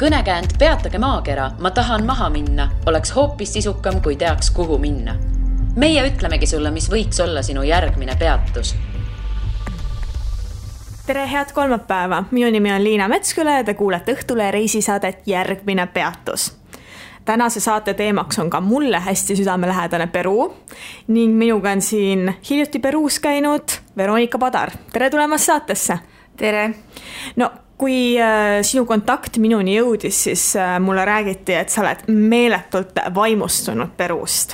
Kõnekäänd Peatage maakera, ma tahan maha minna, oleks hoopis sisukam, kui teaks, kuhu minna. Meie ütlemegi sulle, mis võiks olla sinu järgmine peatus. Tere, head kolmapäeva! Minu nimi on Liina Metsküla ja te kuulete Õhtule reisisaadet Järgmine peatus. Tänase saate teemaks on ka mulle hästi südamelähedane Peru ning minuga on siin hiljuti Peruus käinud Veronika Padar. Tere tulemast saatesse! Tere! No, kui sinu kontakt minuni jõudis, siis mulle räägiti, et sa oled meeletult vaimustunud Peruust.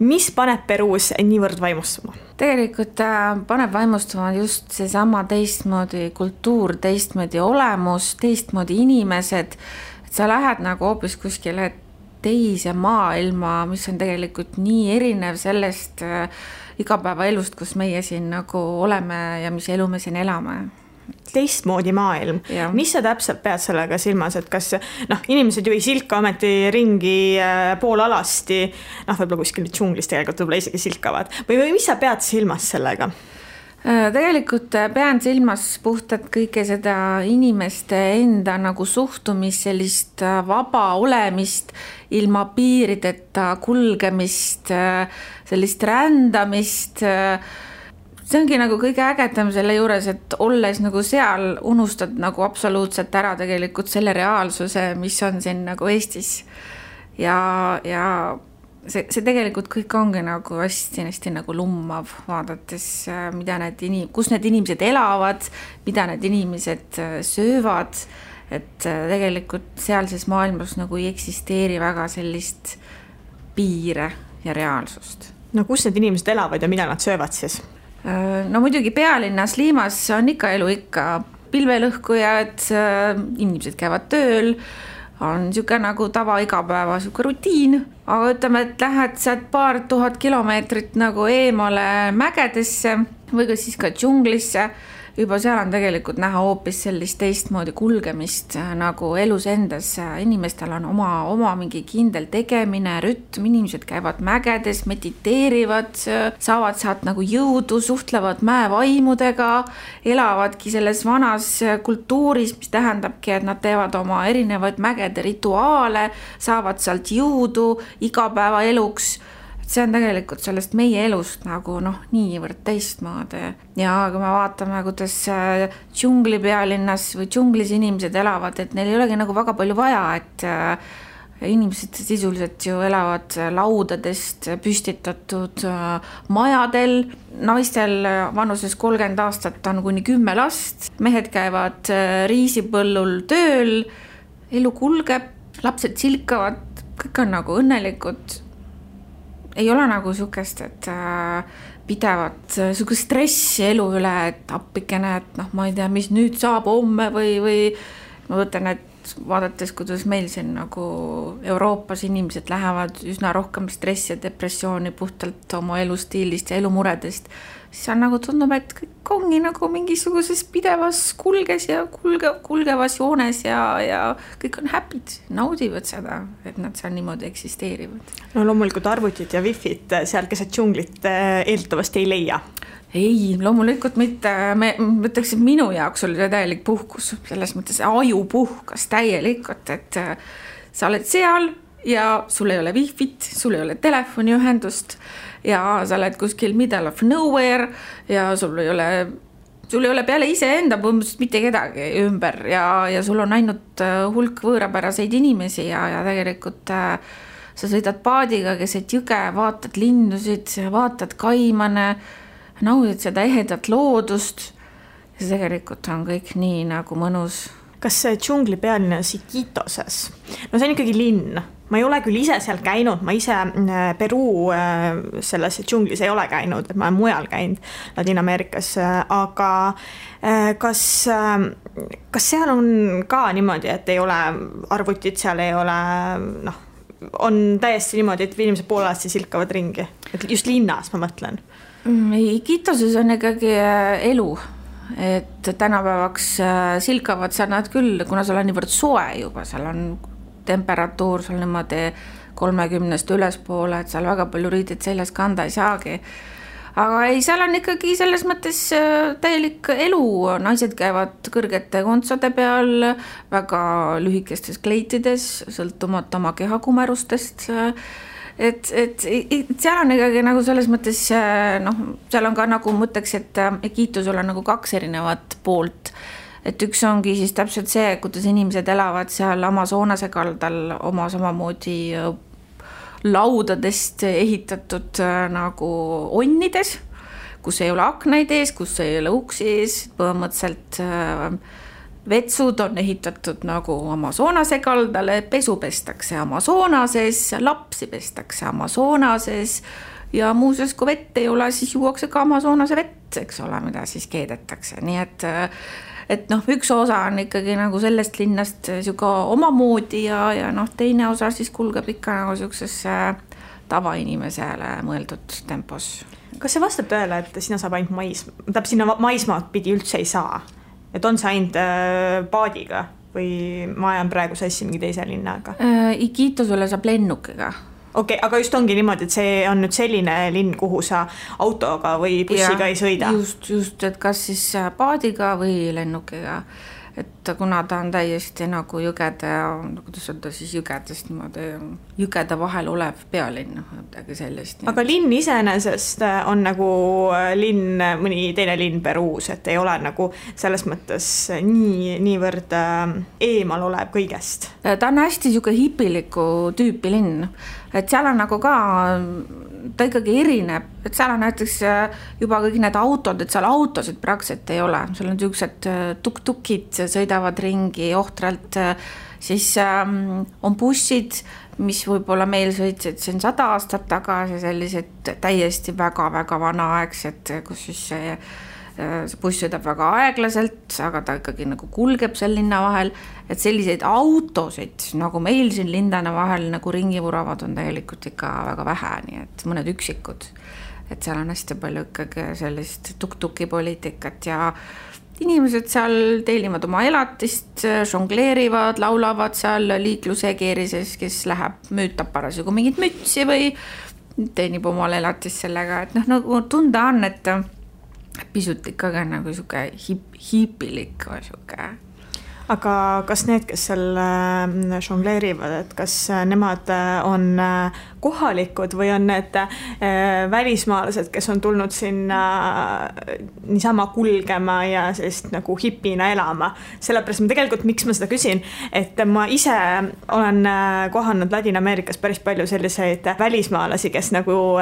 Mis paneb Peruus niivõrd vaimustuma? Tegelikult paneb vaimustuma just seesama teistmoodi kultuur, teistmoodi olemus, teistmoodi inimesed. Et sa lähed nagu hoopis kuskile teise maailma, mis on tegelikult nii erinev sellest igapäevaelust, kus meie siin nagu oleme ja mis elu me siin elame. Teistmoodi maailm. Ja. Mis sa täpselt pead sellega silmas, et kas inimesed ju ei silka ometi ringi pool alasti, võib-olla kuskil džunglis tegelikult võib-olla isegi silkavad, või mis sa pead silmas sellega? Tegelikult pean silmas puhtalt kõike seda inimeste enda nagu suhtumist, sellist vaba olemist, ilma piirideta kulgemist, sellist rändamist. See ongi nagu kõige ägedam selle juures, et olles nagu seal unustad nagu absoluutselt ära tegelikult selle reaalsuse, mis on siin nagu Eestis. Ja see tegelikult kõik ongi nagu hästi nagu lummav, vaadates, kus need inimesed elavad, mida need inimesed söövad, et tegelikult sealses maailmas nagu ei eksisteeri väga sellist piire ja reaalsust. No kus need inimesed elavad ja mida nad söövad siis? No muidugi pealinnas Liimas on ikka elu ikka pilvelõhkujad, inimesed käivad tööl, on niisugune nagu tava igapäeva niisugune rutiin, aga ütleme, et lähed sealt 2000 kilomeetrit nagu eemale mägedesse või ka siis ka džunglisse, juba seal on tegelikult näha hoopis sellist teistmoodi kulgemist nagu elus endas. Inimestel on oma mingi kindel tegemine, rütm, inimesed käivad mägedes, mediteerivad, saavad sealt nagu jõudu, suhtlevad mäevaimudega, elavadki selles vanas kultuuris, mis tähendabki, et nad teevad oma erinevaid mägede rituaale, saavad sealt jõudu igapäeva eluks. See on tegelikult sellest meie elust nagu niivõrd teistmoodi. Ja kui me vaatame, kuidas džungli pealinnas või džunglis inimesed elavad, et neil ei olegi nagu väga palju vaja, et inimesed sisuliselt ju elavad laudadest püstitatud majadel. Naistel vanuses 30 aastat on kuni 10 last. Mehed käivad riisipõllul tööl, elu kulgeb, lapsed silkavad, kõik on nagu õnnelikud. Ei ole nagu sukest, et pidevat sukest stressi elu üle, et appikene, et ma ei tea, mis nüüd saab homme või ma võtan, et vaadates, kuidas meil siin nagu Euroopas inimesed lähevad üsna rohkem stressi ja depressiooni puhtalt oma elustiilist ja elumuredest, siis on nagu tundub, et kõik ongi nagu mingisuguses pidevas kulges ja kulgevas joones ja kõik on happy'd, naudivad seda, et nad seal niimoodi eksisteerivad. No loomulikult arvutid ja wifid seal keset džunglit eeldatavasti ei leia. Ei, loomulikult mitte. Ma ütleks, et minu jaoks oli täielik puhkus. Selles mõttes aju puhkas täielikult, et sa oled seal ja sul ei ole wifit, sul ei ole telefoniühendust ja sa oled kuskil middle of nowhere ja sul ei ole peale ise enda põhimõtteliselt mitte kedagi ümber ja sul on ainult hulk võõrapäraseid inimesi ja tegelikult sa sõidad paadiga keset jõge, vaatad lindusid, vaatad kaimane, naudid seda ehedat loodust ja see tegelikult on kõik nii nagu mõnus. Kas see džungli pealinnas Iquitoses? No see on ikkagi linn. Ma ei ole küll ise seal käinud, ma ise Peru selles džunglis ei ole käinud, et ma olen mujal käinud Ladina-Ameerikas, aga kas seal on ka niimoodi, et ei ole arvutid, seal ei ole, on täiesti niimoodi, et inimesed poolasti silkavad ringi, et just linnas ma mõtlen. Iquitoses on ikkagi elu, et tänapäevaks silkavad seal nad küll, kuna seal on niivõrd soe juba, seal on temperatuur seal niimoodi 30 ülespoole, et seal väga palju riided seljas kanda ei saagi. aga ei, seal on ikkagi selles mõttes täielik elu, naised käivad kõrgete kontsade peal, väga lühikestes kleitides, sõltumata oma kehakumerustest, et seal on ikkagi nagu selles mõttes, noh, seal on ka nagu mõtleks, et Iquitusel on nagu 2 erinevat poolt, et üks ongi siis täpselt see, kuidas inimesed elavad seal Amazonase kaldal oma samamoodi laudadest ehitatud nagu onnides, kus ei ole aknaid ees, kus ei ole uksi ees, põhimõtteliselt vetsud on ehitatud nagu Amazonase kaldale, pesu pestakse Amazonases, lapsi pestakse Amazonases ja muuseas, kui vett ei ole, siis juuakse ka Amazonase vett, eks ole, mida siis keedetakse, nii et noh, üks osa on ikkagi nagu sellest linnast siuke omamoodi ja noh, teine osa siis kulgeb ikka nagu siukses tavainimesele mõeldud tempos. Kas see vastab tõele, et sinna saab ainult sinna maismaad pidi üldse ei saa? Et on see ainult paadiga või ma ajan praegu sassi mingi teise linnaga? Iquitusele saab lennukiga. Okei, aga just ongi niimoodi, et see on nüüd selline linn, kuhu sa autoga või bussiga ei sõida? Just, et kas siis paadiga või lennukiga. Et kuna ta on täiesti nagu jõgede, kuidas öelda siis jõgedest niimoodi, jõgede vahel olev pealinn, midagi sellist. Aga linn iseenesest on nagu linn, mõni teine linn Peruus, et ei ole nagu selles mõttes niivõrd eemal olev kõigest. Ta on hästi siuke hipiliku tüüpi linn, et seal on nagu ka, ta ikkagi erineb, et seal on näiteks juba kõik need autod, et seal autosid praktiliselt ei ole, seal on siuksed tuk-tukid sõidavad ringi ohtralt, siis on bussid, mis võib-olla meil sõitsid siin 100 aastat tagasi, sellised täiesti väga-väga vanaaegsed, kus siis see buss sõidab väga aeglaselt, aga ta ikkagi nagu kulgeb seal linna vahel, et selliseid autosid, nagu meil siin lindane vahel nagu ringi vuravad, on tegelikult ikka väga vähe, nii et mõned üksikud, et seal on hästi palju ikkagi sellist tuk-tuki poliitikat ja inimesed seal teenivad oma elatist, žongleerivad, laulavad seal liikluse keerises, kes läheb müütab parasjagu mingit mütsi või teenib omal elatist sellega, et noh, nagu tunda on, et pisut ikkagi nagu siuke hiipilik või siuke. Aga kas need, kes seal žongleerivad, et kas nemad on kohalikud või on need välismaalased, kes on tulnud sinna niisama kulgema ja sellist nagu hipina elama? Sellepärast ma tegelikult, miks ma seda küsin, et ma ise olen kohanud Ladina-Ameerikas päris palju selliseid välismaalasi, kes nagu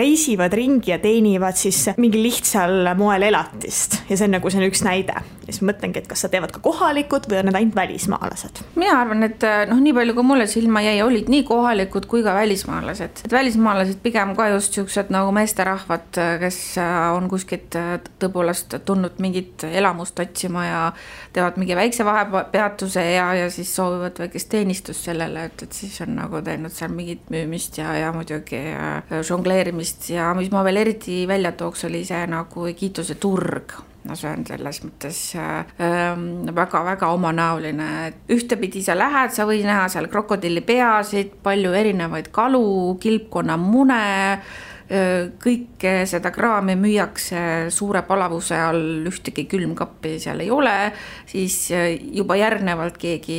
reisivad ringi ja teenivad siis mingi lihtsal moel elatist ja see on nagu see on üks näide. Ja siis mõtlengi, et kas sa teevad ka kohalikud või on need ainult välismaalased? Mina arvan, et noh, nii palju kui mulle silma jäi, olid nii kohalikud kui ka välismaalased. Et välismaalased pigem ka just siuksed nagu meesterahvad, kes on kuskilt tõepoolest tulnud mingit elamust otsima ja teevad mingi väikse vahepeatuse ja siis soovivad väikest teenistust sellele, et siis on nagu teinud seal mingit müümist ja muidugi žongleerimist ja mis ma veel eriti välja tooks, oli see nagu Iquituse turg. No see on selles mõttes väga-väga omanäoline. Ühtepidi sa lähed, sa võid näha seal krokodillipeasid, palju erinevaid kalu, kilpkonna mune, kõike seda kraami müüakse suure palavuse all, ühtegi külmkappi seal ei ole, siis juba järgnevalt keegi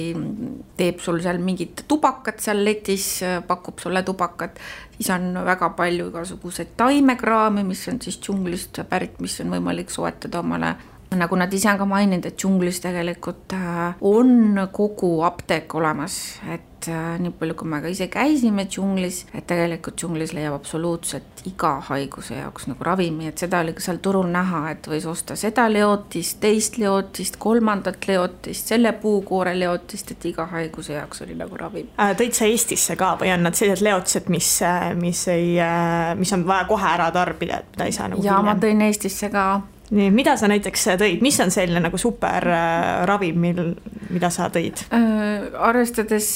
teeb sul seal mingit tubakat seal letis, pakub sulle tubakat, siis on väga palju igasuguseid taimekraami, mis on siis džunglist pärit, mis on võimalik soetada omale. Nagu nad ise on ka maininud, et džunglis tegelikult on kogu apteek olemas, et nii palju kui me ka ise käisime džunglis, et tegelikult džunglis leiab absoluutselt iga haiguse jaoks nagu ravimi, et seda oli ka seal turul näha, et võis osta seda leotist, teist leotist, kolmandat leotist, selle puukoore leotist, et iga haiguse jaoks oli nagu ravim. Tõid sa Eestisse ka või on nad sellised leotised, mis on vaja kohe ära tarbida, et mida ei saa nagu ja hiljem? Ma tõin Eestisse ka. Nii, mida sa näiteks tõid? Mis on selline nagu super ravim, mida sa tõid? Arvestades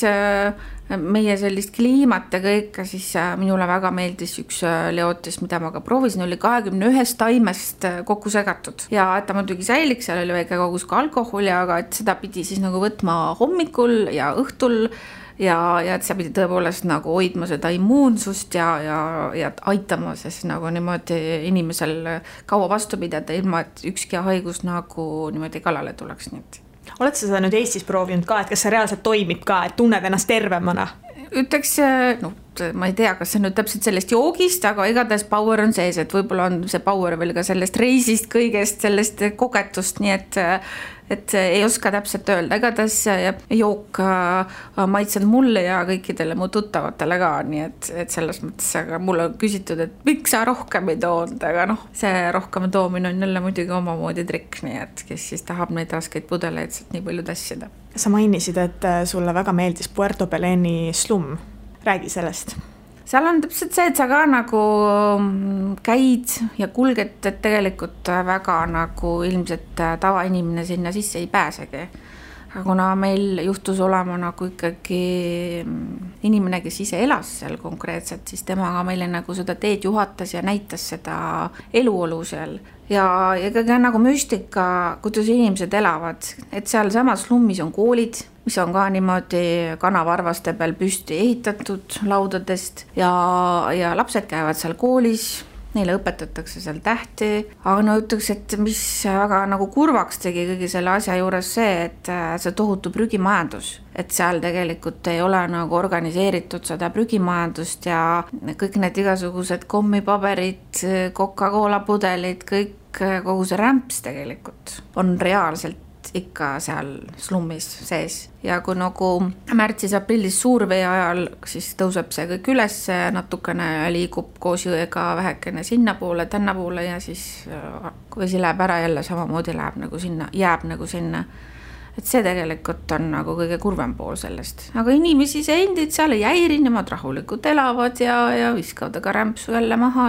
meie sellist kliimat ja kõike, siis minule väga meeldis üks leotis, mida ma ka proovisin, oli 21 taimest kokku segatud. Ja et ta muidugi säiliks, seal oli väike kogus ka alkoholi, aga et seda pidi siis nagu võtma hommikul ja õhtul ja et sa pidi tõepoolest nagu hoidma seda immuunsust ja aitama siis nagu niimoodi inimesel kaua vastu pidada, ilma et ükski haigus nagu niimoodi kallale tuleks. Oled sa seda nüüd Eestis proovinud ka, et kas see reaalselt toimib ka, et tunned ennast tervemana? Ütleks, no ma ei tea, kas see nüüd täpselt sellest joogist, aga igatahes power on sees, et võib-olla on see power veel ka sellest reisist kõigest, sellest kogetust, nii et ei oska täpselt öelda, igatahes jook maitsenud mulle ja kõikidele mu tuttavatele ka, nii et selles mõttes, aga mulle on küsitud, et miks sa rohkem ei toonud, aga see rohkem toomine on jälle muidugi omamoodi trikk, nii et kes siis tahab neid raskeid pudeleid sealt nii palju tassida. Sa mainisid, et sulle väga meeldis Puerto Beleni slum. Räägi sellest. Seal on täpselt see, et sa ka nagu käid ja kulged, et tegelikult väga nagu ilmselt tavainimene sinna sisse ei pääsegi. Aga kuna meil juhtus olema nagu ikkagi inimene, kes ise elas seal konkreetselt, siis temaga meile nagu seda teed juhatas ja näitas seda eluolu seal. Ja ikkagi nagu müstika, kuidas inimesed elavad, et seal samas slummis on koolid, mis on ka niimoodi kanavarvaste peal püsti ehitatud laudadest ja lapsed käivad seal koolis, neile õpetatakse seal tähti, aga ütleks, et mis väga nagu kurvaks tegi kõigi selle asja juures see, et see tohutu prügimajandus, et seal tegelikult ei ole nagu organiseeritud seda prügimajandust ja kõik need igasugused kommipaberid, Coca-Cola pudelid, kogu see rämps tegelikult on reaalselt ikka seal slummis sees ja kui nagu märtsis-aprillis suurvee ajal, siis tõuseb see kõik üles, natukene liigub koos jõega vähekene sinna poole, tänna poole ja siis kui vesi läheb ära jälle samamoodi jääb nagu sinna. Et see tegelikult on nagu kõige kurvem pool sellest. Aga inimesi see endid seal ei häiri, nemad rahulikult elavad ja viskavad aga rämpsu jälle maha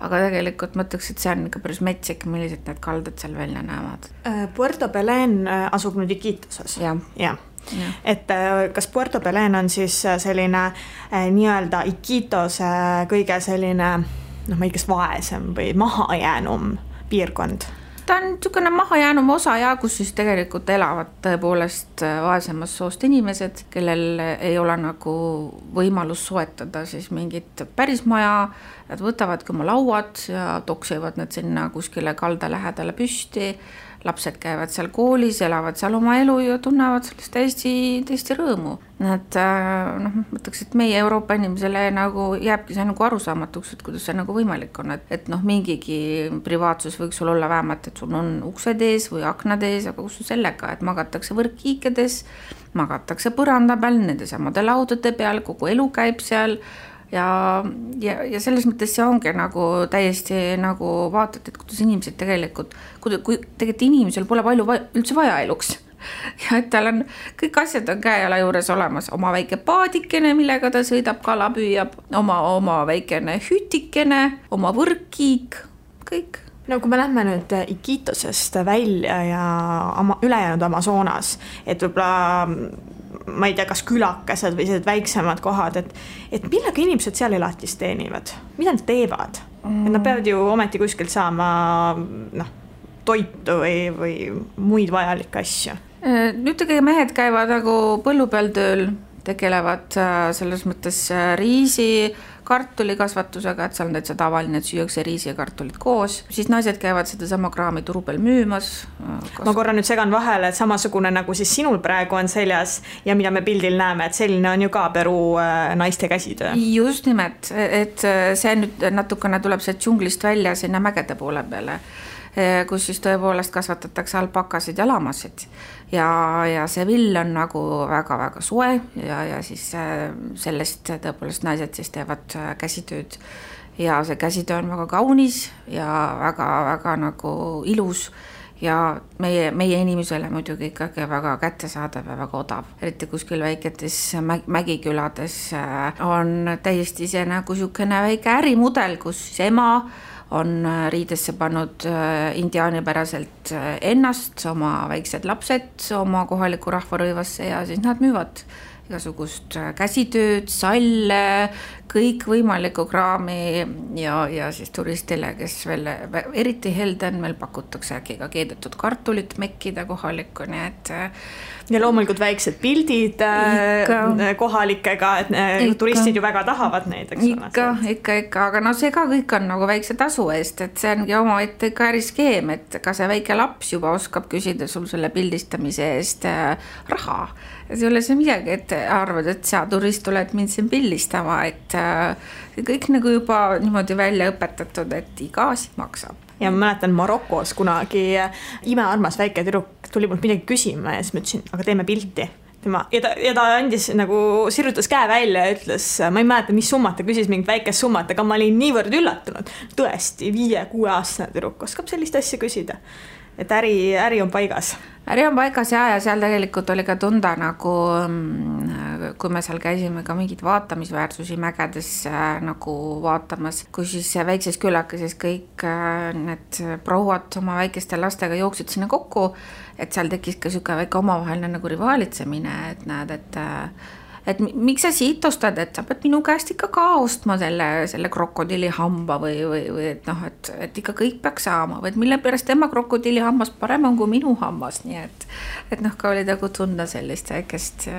aga tegelikult mõtleks, et see on ikka päris metsik, millised need kaldad seal välja näevad. Puerto Belén asub nüüd Iquitoses. Ja. Et kas Puerto Belén on siis selline nii-öelda Iquitose kõige selline, ma ei kas vaesem või mahajäänum piirkond? Ta on niisugune mahajäänum osa kus siis tegelikult elavad tõepoolest vaesemas soost inimesed, kellel ei ole nagu võimalus soetada siis mingit päris maja, nad võtavadki oma lauad ja toksivad need sinna kuskile kalda lähedale püsti, lapsed käivad seal koolis, elavad seal oma elu ja tunnevad sellest täiesti rõõmu. Nad, mõtleks, et meie Euroopa inimesele nagu jääbki see nagu arusaamatuks, et kuidas see nagu võimalik on, et mingigi privaatsus võiks sul olla vähemalt, et sul on uksed ees või aknad ees, aga kus sellega, et magatakse võrkkiikedes, magatakse põranda peal, nende samade laudade peal, kogu elu käib seal ja selles mõttes see ongi nagu täiesti nagu vaatad, et kuidas inimesed tegelikult, kui tegelikult inimesel pole palju üldse vaja eluks ja et tal on kõik asjad on käejala juures olemas, oma väike paadikene, millega ta sõidab, kala püüab, oma väikene hütikene, oma võrkkiik, kõik. No kui me lähme nüüd Iquitosest välja ja ülejäänud Amazonas, et võib-olla ma ei tea, kas külakesed või sellised väiksemad kohad, et millega inimesed seal elatist teenivad? Mida nad teevad? Et nad peavad ju ometi kuskilt saama toitu või muid vajalikke asju. Nüüd tegelikult mehed käivad nagu põllu peal tööl, tegelevad selles mõttes riisi, kartuli kasvatusega, et seal on täitsa tavaline, et süüakse riisi ja kartulit koos. Siis naised käivad seda sama kraami turu peal müümas. Ma korra nüüd segan vahele, et samasugune nagu siis sinul praegu on seljas ja mida me pildil näeme, et selline on ju ka Peruu naiste käsitöö. Just nimelt, et see nüüd natukene tuleb see džunglist välja sinna mägede poole peale, kus siis tõepoolest kasvatatakse alpakasid ja lamasid ja see vill on nagu väga-väga soe ja siis sellest tõepoolest naised siis teevad käsitööd ja see käsitöö on väga kaunis ja väga-väga nagu ilus ja meie inimesele muidugi ikkagi väga kättesaadav ja väga odav. Eriti kuskil väiketes mägikülades on täiesti ise nagu niisugune väike ärimudel, kus siis ema on riidesse pannud indiaanipäraselt ennast, oma väiksed lapsed oma kohaliku rahvarõivasse ja siis nad müüvad igasugust käsitööd, salle, kõik võimalikku kraami ja siis turistile, kes veel eriti helde on, meil pakutakse äkki ka keedetud kartulit mekkida kohalikku, nii et ja loomulikult väiksed pildid kohalikega, et turistid ju väga tahavad neid, eks ikka, aga no see ka kõik on nagu väikse tasu eest, et see ongi oma ette ka äriskeem, et ka see väike laps juba oskab küsida sul selle pildistamise eest raha. See ei ole see midagi, et arvad, et sa turist oled mind siin pildistama, et kõik nagu juba niimoodi välja õpetatud, et iga asi maksab. Ja ma mäletan Marokos kunagi imearmas väike tüdruk tuli mult midagi küsima ja siis ma ütlesin, aga teeme pilti. Ja ta andis nagu sirrutas käe välja ja ütles, ma ei mäleta, mis summat ta küsis mingit väikest summat, aga ma olin niivõrd üllatunud. Tõesti, 5-6 aastane tüdruk oskab sellist asja küsida. Et äri on paigas. Äri on paigas ja seal tegelikult oli ka tunda nagu, kui me seal käisime ka mingid vaatamisväärsusi mägedes nagu vaatamas, kui siis väikses külakeses kõik need prouad oma väikeste lastega jooksid sinna kokku, et seal tekkis ka siuke väike omavaheline nagu rivaalitsemine, et näed, et miks sa siit ostad, et sa pead minu käest ikka ka ostma selle krokodilli hamba või et noh, et ikka kõik peaks saama, või et mille pärast tema krokodilli hammas parem on kui minu hammas, nii et noh, ka oli nagu tunda sellist väikest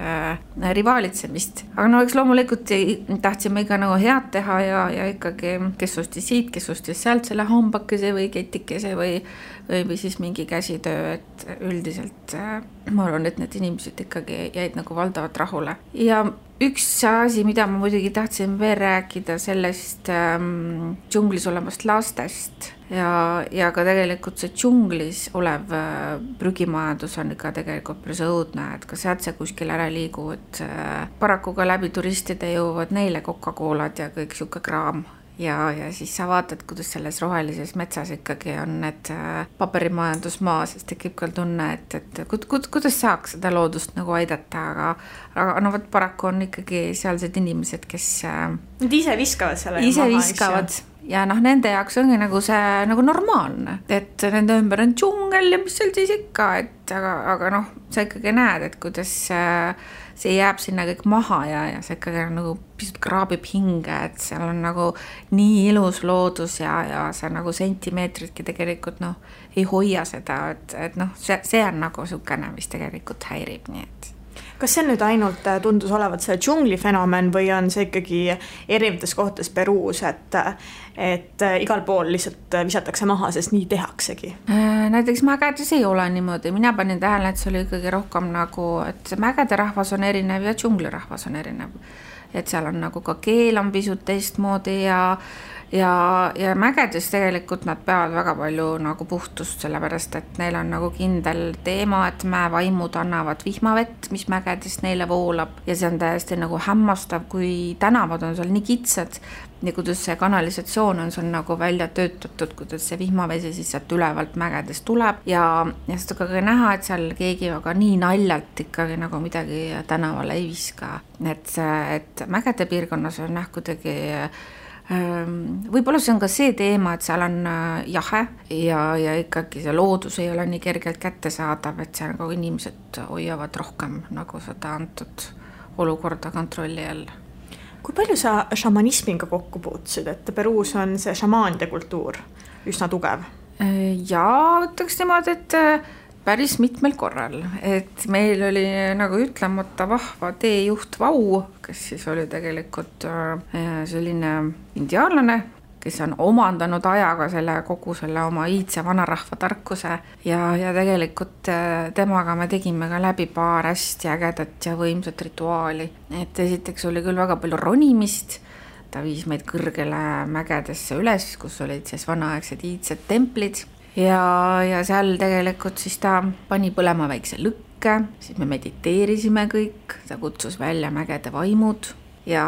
rivaalitsemist. Aga no eks loomulikult tahtsime ikka nagu head teha ja ikkagi kes ostis siit, kes ostis sealt selle hambakese või ketikese või siis mingi käsitöö, et üldiselt ma arvan, et need inimesed ikkagi jäid nagu valdavalt rahule. Ja üks asi, mida ma muidugi tahtsin veel rääkida sellest džunglis olevast lastest ja ka tegelikult see džunglis olev prügimajandus on ikka tegelikult päris õudne, et ka sealt see kuskil ära liigu, et paraku ka läbi turistide jõuavad neile Coca-Colad ja kõik siuke kraam. Ja siis sa vaatad, kuidas selles rohelises metsas ikkagi on need paberimajandusmaa, sest tekib ka tunne, et kuidas saaks seda loodust nagu aidata, aga no võt paraku on ikkagi sealsed inimesed, kes nad ise viskavad selle ise viskavad ja noh, nende jaoks ongi nagu see nagu normaalne, et nende ümber on džungel ja mis seal siis ikka, et aga noh, sa ikkagi näed, et kuidas see jääb sinna kõik maha ja see ikkagi nagu pisut kraabib hinge, et seal on nagu nii ilus loodus ja see nagu sentimeetritki tegelikult noh, ei hoia seda, et noh, see on nagu sukene, mis tegelikult häirib, nii et kas see nüüd ainult tundus olevat see džungli fenomen või on see ikkagi erinevates kohtades Peruus, et igal pool lihtsalt visatakse maha, sest nii tehaksegi? Näiteks mägedes ei ole niimoodi. Mina panin tähele, et see oli ikkagi rohkem nagu, et mägede rahvas on erinev ja džungli rahvas on erinev. Et seal on nagu ka keel on pisut teistmoodi ja mägedes tegelikult nad peavad väga palju nagu puhtust, sellepärast et neil on nagu kindel teema, et mäevaimud annavad vihmavett, mis mägedes neile voolab ja see on täiesti nagu hämmastav, kui tänavad on seal nii kitsad ja kuidas see kanalisatsioon on seal nagu välja töötatud, kuidas see vihmavesi siis sealt ülevalt mägedes tuleb ja seda ka näha, et seal keegi väga nii naljalt ikkagi nagu midagi tänavale ei viska, et mägede piirkonnas on kuidagi võib-olla see on ka see teema, et seal on jahe ja ikkagi see loodus ei ole nii kergelt kättesaadav, et seal nagu inimesed hoiavad rohkem nagu seda antud olukorda kontrolli all. Kui palju sa šamanismiga kokku puutusid, et Peruus on see šamaanide kultuur üsna tugev? Ja ütleks niimoodi, et päris mitmel korral, et meil oli nagu ütlemata vahva teejuht Vau, kes siis oli tegelikult selline indiaanlane, kes on omandanud ajaga kogu selle oma iidse vanarahva tarkuse ja tegelikult temaga me tegime ka läbi paar hästi ägedat ja võimsat rituaali. Et esiteks oli küll väga palju ronimist, ta viis meid kõrgele mägedesse üles, kus olid siis vanaaegsed iidsed templid ja seal tegelikult siis ta pani põlema väikse lõkke, siis me mediteerisime kõik, ta kutsus välja mägede vaimud ja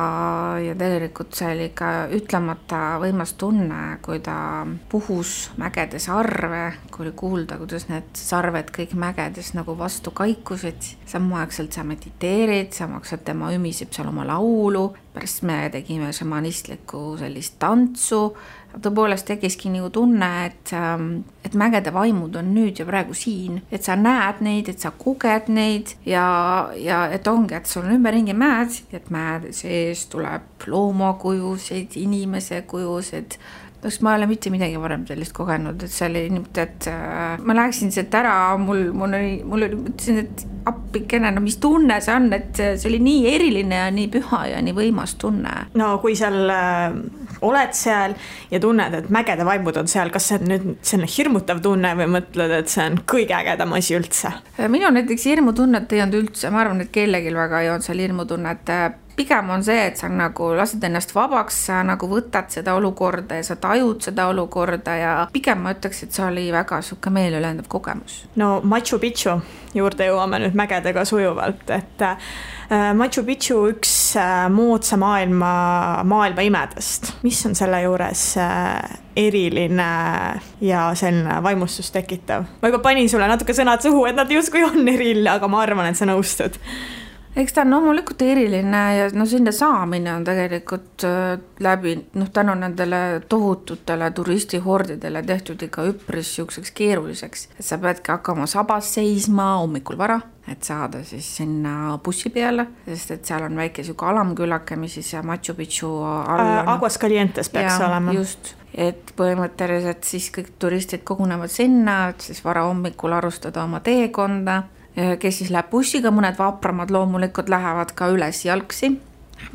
tegelikult see oli ka ütlemata võimas tunne, kui ta puhus mägede sarve, kui oli kuulda, kuidas need sarved kõik mägedes nagu vastu kaikusid, samaaegselt sa mediteerid, samaaegselt tema ümiseb seal oma laulu pärast me tegime šamanistlikku sellist tantsu. Tõepoolest tekiski nagu tunne, et mägede vaimud on nüüd ja praegu siin, et sa näed neid, et sa koged neid ja et ongi, et sul on ümberringi mäed, et mäede sees tuleb loomakujusid, inimese kujusid. Ma ei ole mitte midagi varem sellist kogenud, et see oli niimoodi, et ma läheksin sealt ära, mul oli mõtlesin, et appikene, no mis tunne see on, et see oli nii eriline ja nii püha ja nii võimas tunne. No kui seal oled seal ja tunned, et mägede vaimud on seal, kas see on nüüd selline hirmutav tunne või mõtled, et see on kõige ägedam asi üldse? Minu näiteks hirmutunnet ei olnud üldse, ma arvan, et kellelgi väga ei olnud seal hirmutunnet. Pigem on see, et sa nagu lased ennast vabaks, sa nagu võtad seda olukorda ja sa tajud seda olukorda ja pigem ma ütleks, et see oli väga suke meelülendav kogemus. No Machu Picchu juurde jõuame nüüd mägedega sujuvalt, et Machu Picchu üks moodsa maailma imedest. Mis on selle juures eriline ja selline vaimustust tekitav? Ma juba panin sulle natuke sõnad suhu, et nad justkui on eriline, aga ma arvan, et sa nõustud. Eks ta on loomulikult eriline ja sinna saamine on tegelikult läbi, tänu nendele tohututele turistihordidele tehtud ikka üpris siukseks keeruliseks. Et sa peadki hakkama sabas seisma hommikul vara, et saada siis sinna bussi peale, sest et seal on väike siuke alamkülake, mis siis Machu Picchu all on. Aguascalientes peaks olema. Just, et põhimõtteliselt siis kõik turistid kogunevad sinna, et siis vara hommikul arustada oma teekonda, kes siis läheb bussiga, mõned vapramad loomulikult lähevad ka üles jalgsi,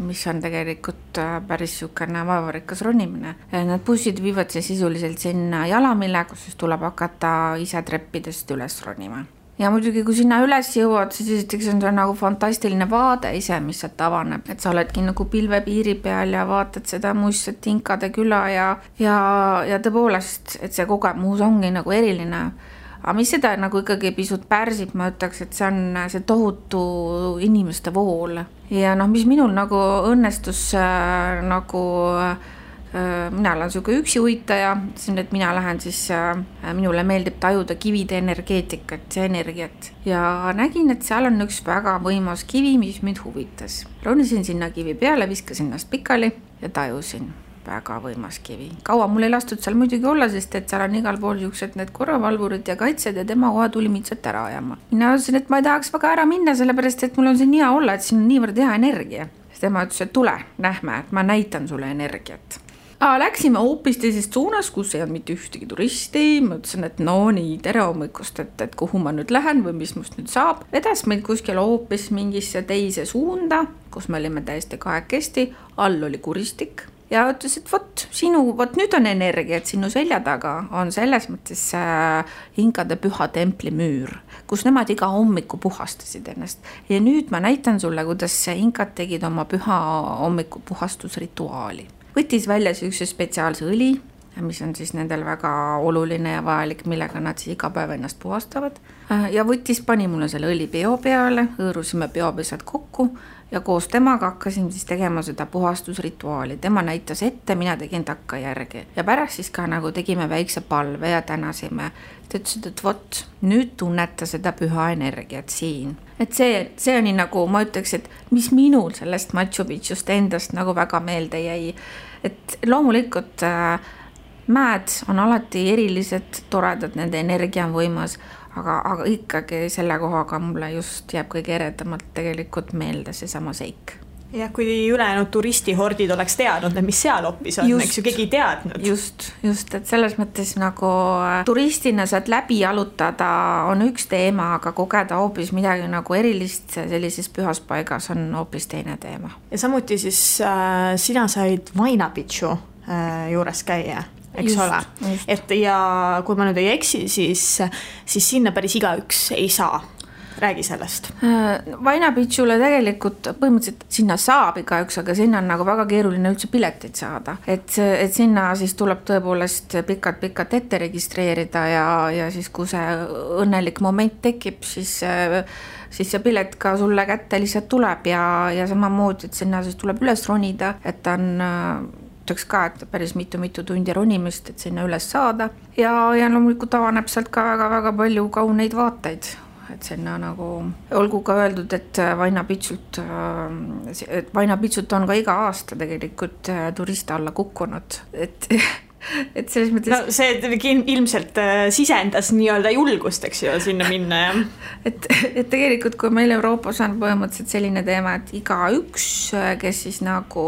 mis on tegelikult päris siukene vaevarikas ronimine. Need bussid viivad siis sisuliselt sinna jalamile, kus siis tuleb hakata ise treppidest üles ronima. Ja muidugi, kui sinna üles jõuad, siis esiteks on see nagu fantastiline vaade ise, mis sealt avaneb. Et sa oledki nagu pilvepiiri peal ja vaatad seda muistset Inkade küla ja tõepoolest, et see kogemus ongi nagu eriline. Aga mis seda nagu ikkagi pisut pärsib, ma ütleks, et see on see tohutu inimeste vool. Ja mis minul nagu õnnestus nagu mina olen siuke üksi uitaja, et mina lähen siis, minule meeldib tajuda kivide energeetikat, see energiat. Ja nägin, et seal on üks väga võimas kivi, mis mind huvitas. Ronisin sinna kivi peale, viskasin ennast pikali ja tajusin. Väga võimas kivi. Kaua mul ei lastud seal muidugi olla, sest et seal on igal pool juuksed need korravalvurid ja kaitsed ja tema kohe tuli mind sealt ära ajama. Mina ütlesin, et ma ei tahaks väga ära minna, sellepärast et mul on siin hea olla, et siin on niivõrd hea energia. Sest tema ütles, et tule, nähme, et ma näitan sulle energiat. Läksime hoopis teisest suunas, kus ei olnud mitte ühtegi turisti. Ma ütlesin, et no nii, tere hommikust, et kuhu ma nüüd lähen või mis must nüüd saab. Vedas meid kuskil hoopis mingisse teise suunda, kus me olime täiesti kahekesti. All oli kuristik. Ja ütles, et vot nüüd on energia, et sinu selja taga on selles mõttes Inkade püha templi müür, kus nemad iga hommiku puhastasid ennast. Ja nüüd ma näitan sulle, kuidas Inkad tegid oma püha hommiku puhastusrituaali. Võttis välja üks spetsiaalse õli, mis on siis nendel väga oluline ja vajalik, millega nad siis iga päev ennast puhastavad. Ja pani mulle selle õli peo peale, hõõrusime peopesad kokku ja koos temaga hakkasin siis tegema seda puhastusrituaali. Tema näitas ette, mina tegin takka järgi. Ja pärast siis ka nagu tegime väikse palve ja tänasime. Ta ütlesid, et nüüd tunneta seda püha energiat siin. Et see on nii nagu, ma ütleks, et mis minul sellest Machu Picchust endast nagu väga meelde jäi. Et loomulikult mäed on alati erilised, toredad, nende energia on võimas, aga ikkagi selle kohaga mulle just jääb kõige eredamalt tegelikult meelde see sama seik. Ja kui ülejäänud turistihordid oleks teadnud, mis seal hoopis on, eks ju keegi teadnud. Just, et selles mõttes nagu turistina saad läbi jalutada on üks teema, aga kogeda hoopis midagi nagu erilist sellises pühas paigas on hoopis teine teema. Ja samuti siis sina said Machu Picchu juures käia. Eks ole. Et ja kui ma nüüd ei eksi, siis sinna päris igaüks ei saa. Räägi sellest. Machu Picchule tegelikult põhimõtteliselt sinna saab igaüks, aga sinna on nagu väga keeruline üldse piletit saada. Et sinna siis tuleb tõepoolest pikalt ette registreerida ja siis kui see õnnelik moment tekib, siis see pilet ka sulle kätte lihtsalt tuleb ja samamoodi, et sinna siis tuleb üles ronida, et ta on ka, et päris mitu tundi ronimist, et sinna üles saada ja loomulikult avaneb sealt ka väga palju kauneid vaateid. et sinna nagu olgu ka öeldud, et Vaina Pitsult on ka iga aasta tegelikult turiste alla kukkunud, et selles mõttes... No see ilmselt sisendas nii-öelda julgust, eks ju, sinna minna, jah. Et tegelikult, kui meil Euroopas on põhimõtteliselt selline teema, et iga üks, kes siis nagu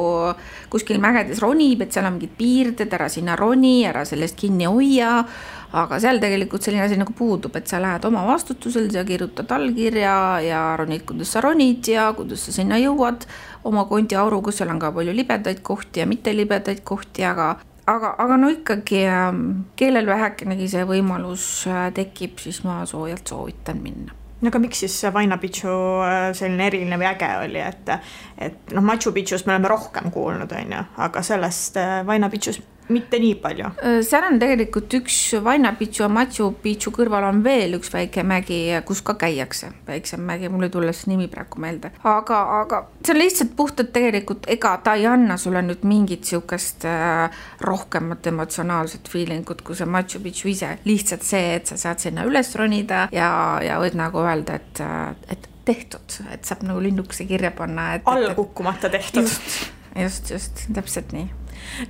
kuskil mägedes ronib, et seal on mingid piirded, ära sinna roni, ära sellest kinni hoia, aga seal tegelikult selline asi nagu puudub, et sa lähed oma vastutusel, sa kirjutad allkirja ja ronid, kuidas sa ronid ja kuidas sa sinna jõuad oma kondiauru, kus seal on ka palju libedaid kohti ja mitte libedaid kohti, aga no ikkagi kellel vähekenegi see võimalus tekib, siis ma soojalt soovitan minna. No aga miks siis Vaina Pitsu selline eriline või äge oli, et Machu Picchust me oleme rohkem kuulnud, aga sellest Vaina Pitsus mitte nii palju. Seal on tegelikult üks Vaina Pitsu ja Machu Picchu kõrval on veel üks väike mägi, kus ka käiakse. Väiksem mägi, mul ei tule see nimi praegu meelde. Aga see on lihtsalt puhtalt tegelikult, ega ta ei anna sulle nüüd mingit siukest rohkemat emotsionaalset feelingut, kui see Machu Picchu ise. Lihtsalt see, et sa saad sinna üles ronida ja võid nagu öelda, et tehtud, et saab nagu linnukese kirja panna. Alla kukkumata tehtud. Just, täpselt nii.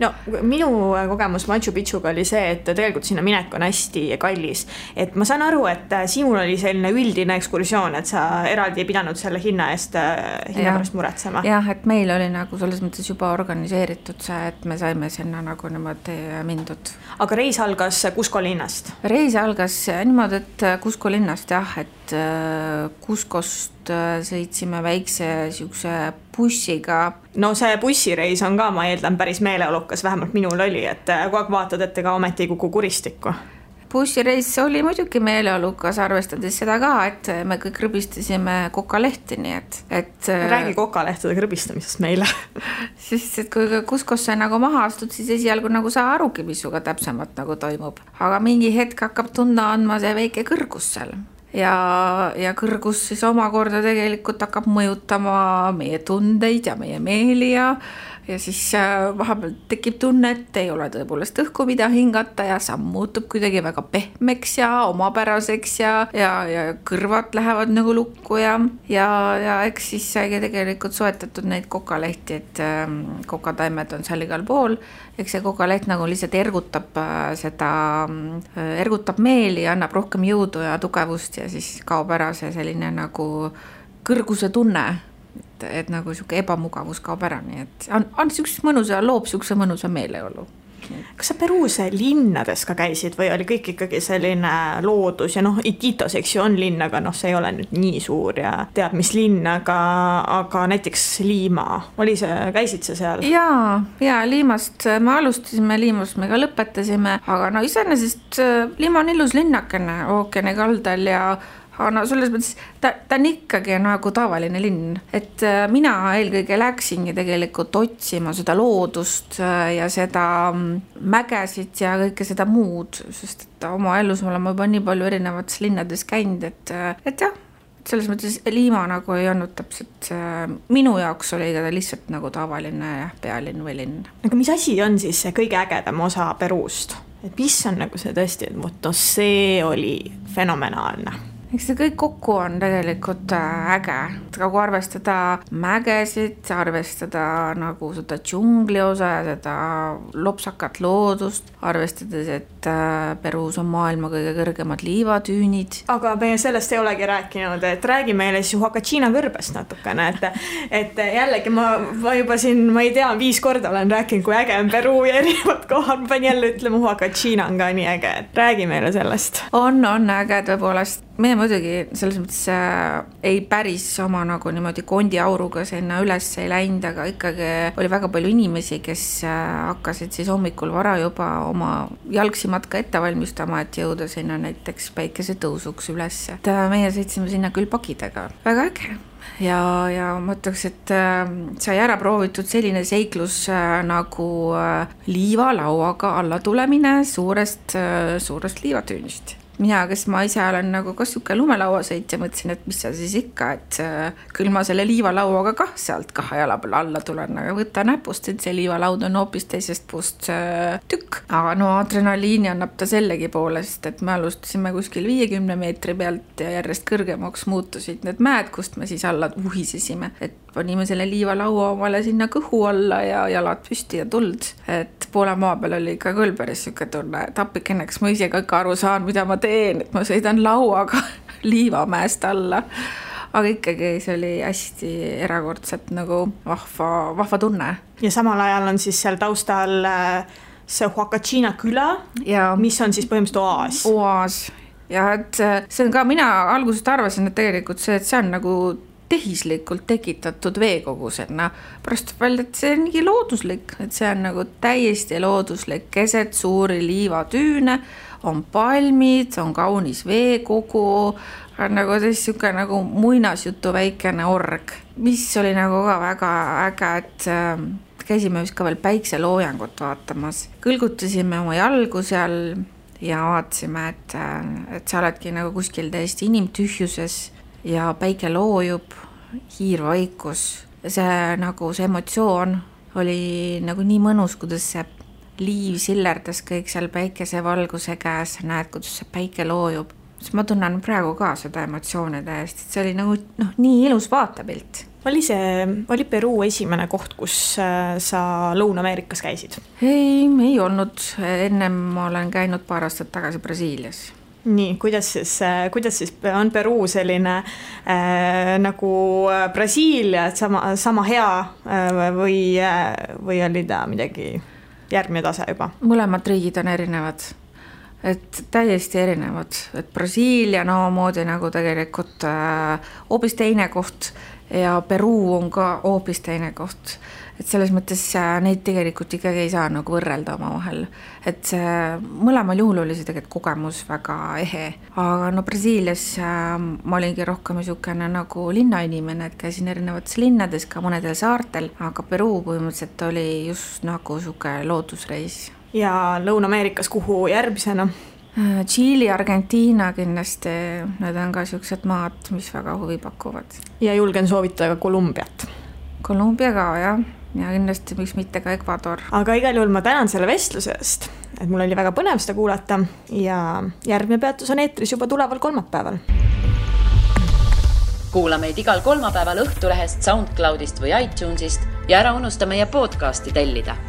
No minu kogemus Machu Picchuga oli see, et tegelikult sinna minek on hästi kallis. Et ma saan aru, et sinul oli selline üldine ekskursioon, et sa eraldi ei pidanud selle hinna pärast muretsema. Jah, et meil oli nagu selles mõttes juba organiseeritud see, et me saime sinna nagu niimoodi mindud. Aga reis algas Cusco linnast? Reis algas niimoodi, et Cusco linnast jah, et Cuscost sõitsime väikse siukse bussiga. No see bussireis on ka, ma eeldan, päris meeleolukas, vähemalt minul oli, et kogu aeg vaatad, et ega ometi ei kuku kuristikku. Bussireis oli muidugi meeleolukas, arvestades seda ka, et me kõik krõbistasime kokalehti, nii et räägi kokalehtede krõbistamisest meile. Sest et kui Cuscosse nagu maha astud, siis esialgu nagu sa arugi, mis suga täpsemalt nagu toimub. Aga mingi hetk hakkab tunda andma see väike kõrgus seal. Ja kõrgus siis omakorda tegelikult hakkab mõjutama meie tundeid ja meie meeli ja siis vahepeal tekib tunne, et ei ole tõepoolest õhku mida hingata ja samm muutub kuidagi väga pehmeks ja omapäraseks ja kõrvad lähevad nagu lukku ja eks siis saigi tegelikult soetatud neid kokalehti, et kokataimed on seal igal pool. Eks see kokaleht nagu lihtsalt ergutab meeli ja annab rohkem jõudu ja tugevust ja siis kaob ära see selline nagu kõrguse tunne, et nagu siuke ebamugavus kaob ära, nii et on siukse mõnusa, loob siukse mõnusa meeleolu. Kas sa Peruus linnades ka käisid või oli kõik ikkagi selline loodus ja Iquitos, eks ju, on linn, aga see ei ole nüüd nii suur ja tead mis linn, aga näiteks Liima, käisid sa seal? Ja Liimast me alustasime, Liimast me ka lõpetasime, aga iseenesest Liima on ilus linnakene ookeani kaldal ja selles mõttes ta on ikkagi nagu tavaline linn, et mina eelkõige läksingi tegelikult otsima seda loodust ja seda mägesid ja kõike seda muud, sest et oma elus oleme juba nii palju erinevates linnades käinud, et jah, selles mõttes Liima nagu ei olnud täpselt, minu jaoks oli ta lihtsalt nagu tavaline pealinn või linn. Aga mis asi on siis see kõige ägedam osa Peruust? Et mis on nagu see tõesti, et see oli fenomenaalne? Eks see kõik kokku on tegelikult äge, nagu arvestada mägesid, arvestada nagu seda džungli osa ja seda lopsakat loodust, arvestades, et Peruus on maailma kõige kõrgemad liivatüünid. Aga me sellest ei olegi rääkinud, et räägi meile siis Huacachina kõrbest natukene, et jällegi ma juba siin, ma ei tea, 5 korda olen rääkinud, kui äge on Peru ja erinevad kohad, ma pean jälle ütlema, Huacachina on ka nii äge, et räägi meile sellest. On äge tõepoolest. Meie muidugi selles mõttes ei päris oma nagu niimoodi kondiauruga sinna üles ei läinud, aga ikkagi oli väga palju inimesi, kes hakkasid siis hommikul vara juba oma jalgsimatka ette valmistama, et jõuda sinna näiteks päikese tõusuks üles. Meie sõitsime sinna küll pakidega. Väga äge. Ja ma ütleks, et sai ära proovitud selline seiklus nagu liivalauaga alla tulemine suurest liivatüünist. mina, kes ma ise olen nagu ka siuke lumelauasõitja, mõtlesin, et mis seal siis ikka, et küll ma selle liivalauaga kah sealt 2 jala peale alla tulen, aga võta näpust, et see liivalaud on hoopis teisest puust tükk. Aga no adrenaliini annab ta sellegi poolest, et me alustasime kuskil 50 meetri pealt ja järjest kõrgemaks muutusid need mäed, kust me siis alla uhisesime, et panime selle liivalaua omale sinna kõhu alla ja jalad püsti ja tuld, et poole maa peal oli ikka küll päris siuke tunne, et appikeneks ma ise ka aru saan, mida ma teen, et ma sõidan lauaga liivamäest alla, aga ikkagi see oli hästi erakordselt nagu vahva tunne. Ja samal ajal on siis seal taustal see Huacachina küla, mis on siis põhimõtteliselt oaas. Ja et see on ka, mina algusest arvasin, et tegelikult see on nagu tehislikult tekitatud veekogusena. Pärast välja, et see on nii looduslik, et see on nagu täiesti looduslik, keset suuri liivatüüne, on palmid, on kaunis veekogu, on nagu siuke nagu muinasjutu väikene org, mis oli nagu ka väga äge, et käisime vist ka veel päikseloojangut vaatamas. Kõlgutasime oma jalgu seal ja vaatasime, et sa oledki nagu kuskil täiesti inimtühjuses ja päike loojub, hiirvaikus. See nagu see emotsioon oli nagu nii mõnus, kuidas see liiv sillerdas kõik seal päikese valguse käes, näed, kuidas see päike loojub. Ma tunnen praegu ka seda emotsioone täiesti, et see oli nagu nii ilus vaatepilt. Oli Peruu esimene koht, kus sa Lõuna-Ameerikas käisid? Ei olnud. Ennem ma olen käinud paar aastat tagasi Brasiilias. Nii, kuidas siis on Peruu selline nagu Brasiilia, et sama hea või oli ta midagi järgmine tase juba? Mõlemad riigid on erinevad, et täiesti erinevad, et Brasiilia moodi nagu tegelikult hoopis teine koht ja Peruu on ka hoopis teine koht. Et selles mõttes neid tegelikult ikkagi ei saa nagu võrrelda oma vahel. Et mõlemal juhul oli see tegelikult kogemus väga ehe. Aga Brasiilias ma olingi rohkem niisugune nagu linnainimene, et käisin erinevates linnades, ka mõnedel saartel, aga Peruu põhimõtteliselt oli just nagu niisugune loodusreis. Ja Lõuna-Ameerikas kuhu järgmisena? Tšiili, Argentiina kindlasti, need on ka niisugused maad, mis väga huvi pakuvad. Ja julgen soovitada ka Kolumbiat. Kolumbia ka, jah. Ja kindlasti miks mitte ka Ecuador. Aga igal juhul ma tänan selle vestlusest, et mul oli väga põnev seda kuulata ja järgmine peatus on eetris juba tuleval kolmapäeval. Kuula meid igal kolmapäeval Õhtulehest, SoundCloudist või iTunesist ja ära unusta meie podcasti tellida.